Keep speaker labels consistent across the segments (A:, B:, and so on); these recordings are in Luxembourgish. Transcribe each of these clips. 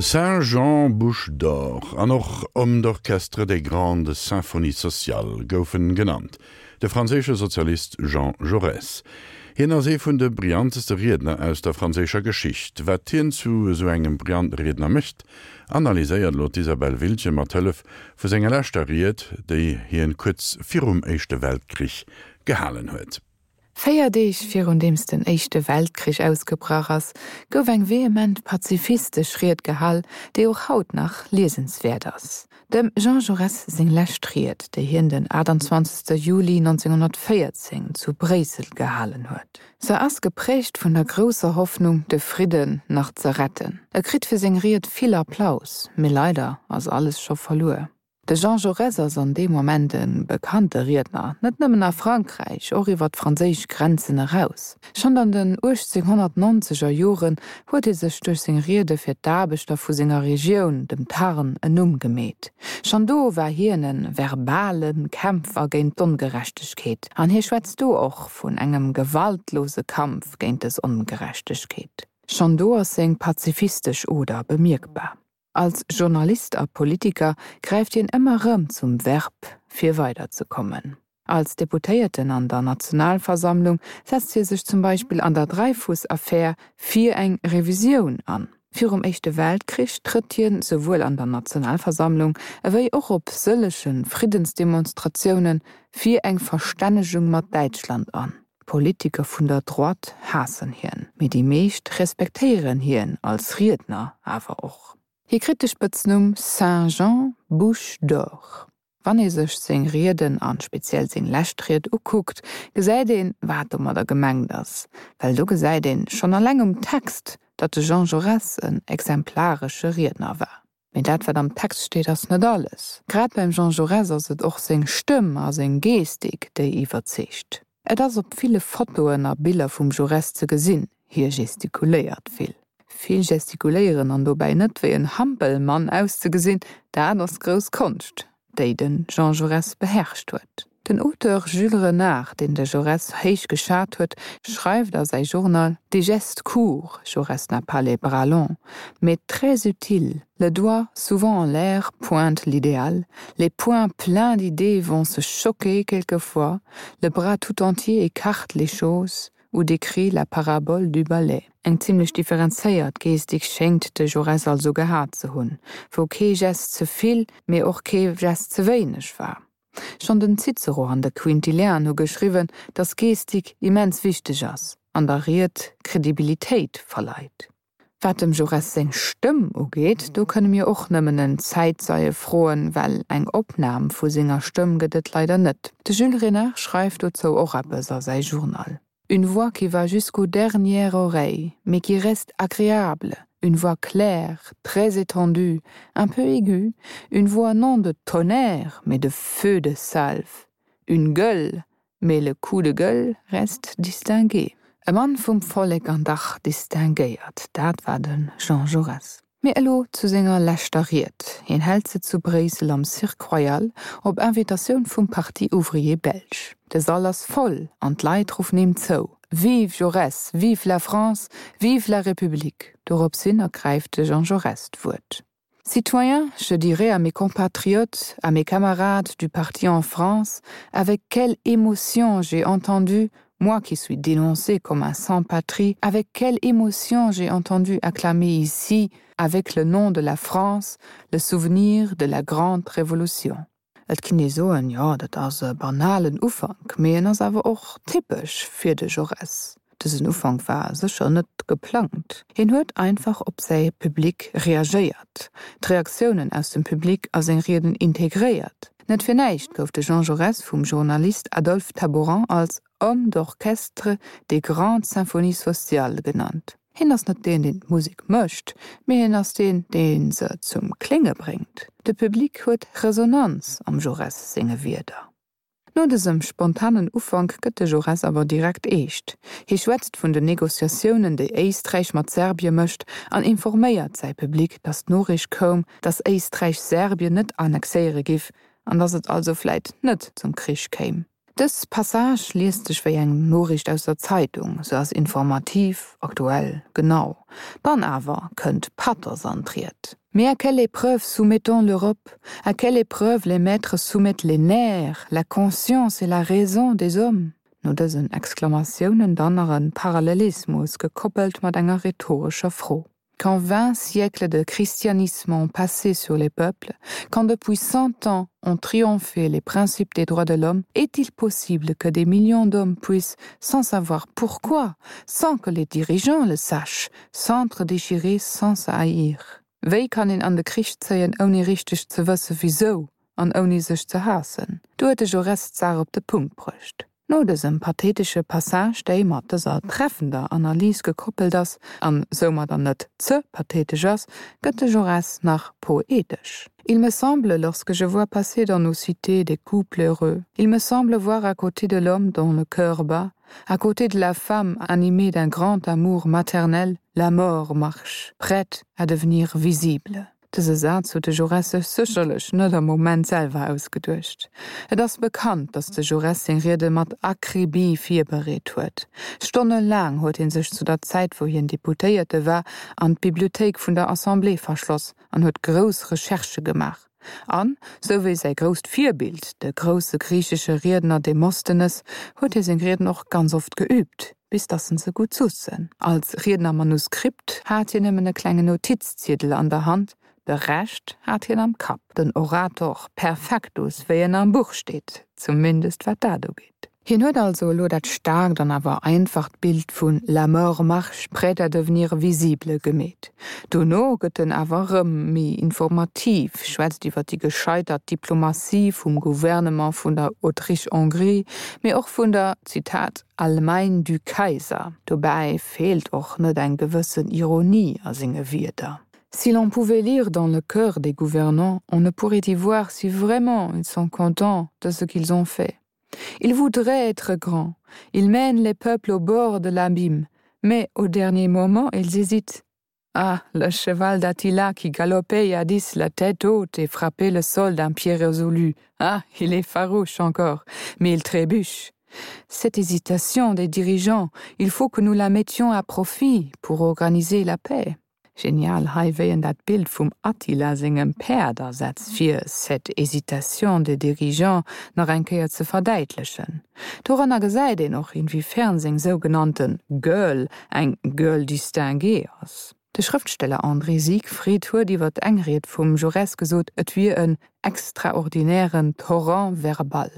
A: Saint-Jean Bouche d'Or an och Homme d'orchestre des grandes symphonies sociales gouf en genannt, de franséische Sozialist Jean Jaurès. Hien ass ee vun de brillanteste Riedner aus der franséischer Geschicht. Wat hien zu esou engem brillante Riedner mécht, analyséiert elo d'Isabelle Wiltgen mat Hëllef vu senger leschter Ried, déi hien kuerz virum Éischte Weltkrich gehalen huet.
B: Véier Deeg virun deems den Éischte Weltkrich ausgebrach ass, gouf eng vehement pazifistesch Ried gehal, déi och haut nach liesenswäert ass. Dem Jean Jaurès seng lescht Ried, déi hien den 28. Juli 1914 zu Bréissel gehalen huet. Se ass geprägt vun der grousser Hoffnung, de Fridden nach ze retten. E kritt fir seng Ried vill Applaus, mee leider ass alles scho verluer. De Jean Jaurès ass an deem Moment e bekannte Riedner, net nëmmen a Frankräich, och iwwer d'franséisch Grenzen eraus. Schonn an den 1890 er Joren huet hie sech duerch seng Riede fir d'Aarbechter vu senger Regioun, dem Tarn, en Numm gemeet. Schonn do war hien e verbale Kämpfer géint d'Ongerechtegkeet, an hie schwätzt do och vun engem gewaltlose Kampf géint dës Ongerechtegkeet. Schonn do ass seng pazifistesch Oder bemierkbar. Als Journalist a Politiker gräift hien ëmmer rëm zum Verb, fir weiderzekommen. Als Deputéierten an der Nationalversammlung setzt hie sech zum Beispill an der Dreyfus-Affär fir eng Revisioun an. Virum Éischte Weltkrich trëtt hien souwuel an der Nationalversammlung ewéi och op sëllege Friddensdemonstratioune fir eng Verstännegung mat Däitschland an. D'Politiker vun der Droite haassen hien, mee déi meescht respektéieren hien als Riedner awer och. Hie kritt de Spëtznumm Saint Jean Bouche d'Or. Wann ee sech seng Rieden an speziell seng lescht Ried ukuckt, gesäit een, wat domadder gemengt ass. Well do gesäit een schonn alleng um Text, datt de Jean Jaurès en exemplaresche Riedner war. Mee dat, wat am Text steet, ass net alles. Grad beim Jean Jaurès ass et och seng Stëmm a seng Gestik, déi iwwerzeegt. Et ass op ville Fotoen a Biller vum Jaurès ze gesinn, hie gestikuléiert vill. Vill gestikuléieren an dobäi net wéi en Hampelmann auszegesinn, dat ass grouss Konscht, déi de Jean Jaurès beherrscht huet. Den Auteur Jules Renard, deen de Jaurès héich geschat huet, schreift a säi Journal, Des gestes courts, Jaurès n'a pas les bras longs, mais très utiles, le doigt, souvent en l'air, pointe l'idéal, les poings pleins d'idées vont se choquer quelquefois, le bras tout entier écarte les choses ou décrit la parabole du balai. Eng zimlech differenzéiert Gestik schéngt de Jaurès also gehat ze hunn, wou kee Gest ze vill, mee och kee Gest ze wéineg war. Schonn den Cicero an de Quintilian hu geschriwwen, datt Gestik immens wichteg ass an der Ried Kredibilitéit verleit. Wat dem Jaurès seng Stëmm ugeet, do kënne mir och nëmmen en Zäitzeie froen, well eng Opnam vu senger Stëmm gëtt et leider net. De Jules Renard schreift dozou och eppes a säi Journal. Une voix qui va jusqu'aux dernières oreilles, mais qui reste agréable, une voix claire, très étendue, un peu aiguë, une voix non de tonnerre, mais de feu de salve, une gueule, mais le coup de gueule reste distingué. E Mann vum Vollek an dach distinguéiert, dat war de Jean Jaurès. Mee elo zu senger leschter Ried. Hien hält se zu Bréissel am Cirque Royal op Invitatioun vum Parti Ouvrier Belge. De Sall ass voll an d'Leit ruffen him zou, Vive Jaurès! Vive la France! Vive la République! Dorops hin ergräift de Jean Jaurès d'Wuert. Citoyens, je dirais à mes compatriotes, à mes camarades du parti en France, avec quelle émotion j'ai entendu moi qui suis dénoncé comme un sans-patrie, avec quelle émotion j'ai entendu acclamer ici, avec le nom de la France, le souvenir de la grande Révolution. Et kinnt ee soen, jo, dat ass e banalen Ufank, mee en ass awer och typesch fir de Jaurès. Dësen Ufank war sécher net geplangt. Hien huet einfach op säi Public reagéiert, d'Reaktiounen aus dem Public a seng Rieden integréiert. Net fir näischt gouf de Jean Jaurès vum Journalist Adolphe Taboran als Homme d'orchestre des grandes symphonies sociales genannt. Hien ass net deen, deen d'Musek mécht, mee hien ass deen, dee se zum Klénge bréngt. De Public huet Resonanz am Jaurès senge Wierder. No dësem spontanen Ufank gëtt de Jaurès awer direkt eescht. Hie schwätzt vun den Negociatiounen, déi Éisträich mat Serbie mécht an informéiert säi Public, datt d'Noriicht koum, datt Éisträich Serbien net annexéiere giff an datt et also vläit net zum Krich kéim. Dës Passage liest sech wéi eng Noriicht aus der Zeitung, se ass informativ, aktuell, genau. Dann awer kënnt Pathos an d'Ried. Mais à quelle épreuve soumettons l'Europe? À quelle épreuve les maîtres soumettent les nerfs, la conscience et la raison des hommes? No dësen Exklamatiounen dann nach e Parallelismus, gekoppelt mat enger rhetorescher Fro. Quand vingt siècles de christianisme ont passé sur les peuples, quand depuis cent ans ont triomphé les principes des droits de l'homme, est-il possible que des millions d'hommes puissent, sans savoir pourquoi, sans que les dirigeants le sachent, s'entre-déchirer sans se haïr? Wéi kann een an de Krich zéien, ouni richteg ze wësse wisou an ouni sech ze haassen? Do huet de Jaurès d'Saach op de Punkt bruecht. No dësem pathetesche Passage, déi mat dëser treffender Analys gekoppelt ass an soumadder net ze pathetesch ass, gëtt de Jaurès nach poetesch. Il me semble, lorsque je vois passer dans nos cités des couples heureux, il me semble voir à côté de l'homme dont le cœur bat, à côté de la femme animée d'un grand amour maternel, la mort marche, prête à devenir visible. Dëse Saz huet de Jaurès sech sécherlech net am Moment selwer ausgeduecht. Et ass bekannt, datt de Jaurès seng Riede mat Akribie virbereet huet. Stonnelaang huet hie sech zu der Zäit, wou hien Deputéierte war, an d'Bibliothéik vun der Assemblée verschloss an huet grouss Recherchë gemaach. An, sou wéi säi grousst Virbild, de grousse griichesche Riedner Demosthenes, huet hie seng Rieden och ganz oft geüübt. bis dass en se gutt sussen. Als Riednermanuskript hat hien nëmmen e klengen Notizziedel an der Hand, de Rescht hat hien am Kapp, den Orator perfectus, wéi en am Buch steet, zumindest wat dat ugeet. Hien huet also elo dat staarkt an awer einfacht Bild vun La mort marche prête à devenir visible gemeet. Dono gëtt en awer erëm méi informativ, schwätzt iwwer déi gescheitert Diplomatie vum Gouvernement vun der Autriche-Hongrie, mee och vun der, Zitat, Allemagne du Kaiser. Dobäi feelt och net eng gewëssen Ironie a senge Wierder. Si l'on pouvait lire dans le cœur des gouvernants, on ne pourrait y voir si vraiment ils sont contents de ce qu'ils ont fait. Ils voudraient être grands, ils mènent les peuples au bord de l'abîme, mais au dernier moment ils hésitent. Ah, le cheval d'Attila qui galopait jadis la tête haute et frappait le sol d'un pied résolu, ah, il est farouche encore, mais il trébuche. Cette hésitation des dirigeants, il faut que nous la mettions à profit pour organiser la paix. Genial hei wéi en dat Bild vum Attila sengem Päerd asetzt fir cette hésitation des dirigeants nach eng Kéier ze verdäitlechen. Doranner gesäit een och inwiefern seng sougenannten Gueule eng Gueule distinguée ass. De Schrëftsteller André Siegfried huet iwwer eng Ried vum Jaurès gesot, et wier en extraordinären Torrent verbal.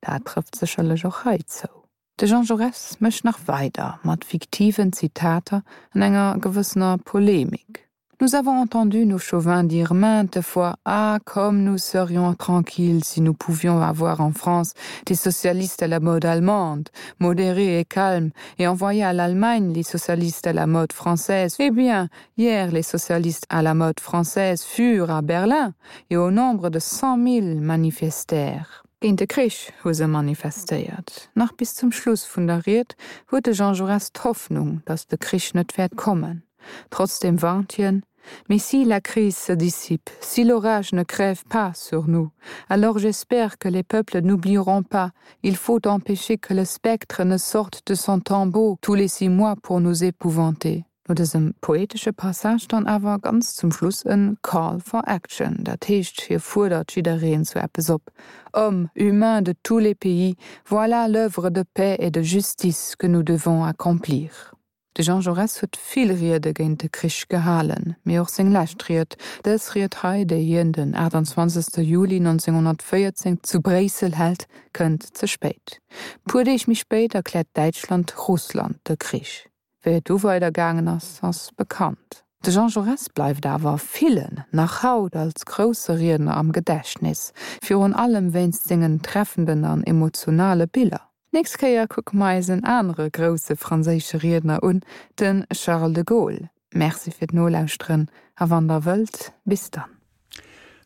B: Dat trëfft sécherlech och hei zou. De Jean Jaurès mécht nach weider mat fiktiven Zitater an enger gewëssener Polemik. Nous avons entendu nos chauvins dire maintes fois ah comme nous serions tranquilles si nous pouvions avoir en France des socialistes à la mode allemande, modérés et calmes, et envoyer à l'Allemagne les socialistes à la mode française. Eh bien, hier les socialistes à la mode française furent à Berlin et au nombre de 100 000 manifestèrent. Géint de Krich hu se manifestéiert. Nach bis zum Schluss vun der Ried huet de Jean Jaurès d'Hoffnung, datt de Krich net wäert kommen. Trotzdeem warnt hien, Mais si la crise se dissipe, si l'orage ne crève pas sur nous, alors j'espère que les peuples n'oublieront pas, il faut empêcher que le spectre ne sorte de son tombeau tous les six mois pour nous épouvanter. No dësem poetesche Passage dann awer ganz zum Schluss en Call for Action, dat heescht hie fuerdert jiddereen zu eppes op, Hommes, humains de tous les pays, voilà l'oeuvre de paix et de justice que nous devons accomplir. De Jean Jaurès huet vill Riede géint de Krich gehalen, mee och seng lescht Ried, dës Ried hei, déi hien den 28 Juli 1914 zu Bréissel hält, kënnt ze spéit. Puer Deeg méi spéit erkläert Däitschland Russland de Krich. Wéi et du weider gaangen ass, ass bekannt. De Jean Jaurès bleift awer villen nach haut als grousse Riedner am Gedächtnis, virun allem wéinst sengen treffenden an emotionale Biller. D'nächst Kéier kucke mer eis en anere grousse franséische Riedner un, de Charles de Gaulle. Merci fir d'Nolauschteren a wann der wëllt, bis dann.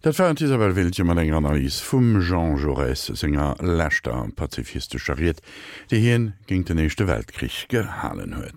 A: Dat war d'Isabel Wiltgen mat enger Analys vum Jean Jaurès senger leschter pazifistescher Ried, déi hien géint den Éischte Weltkrich gehalen huet.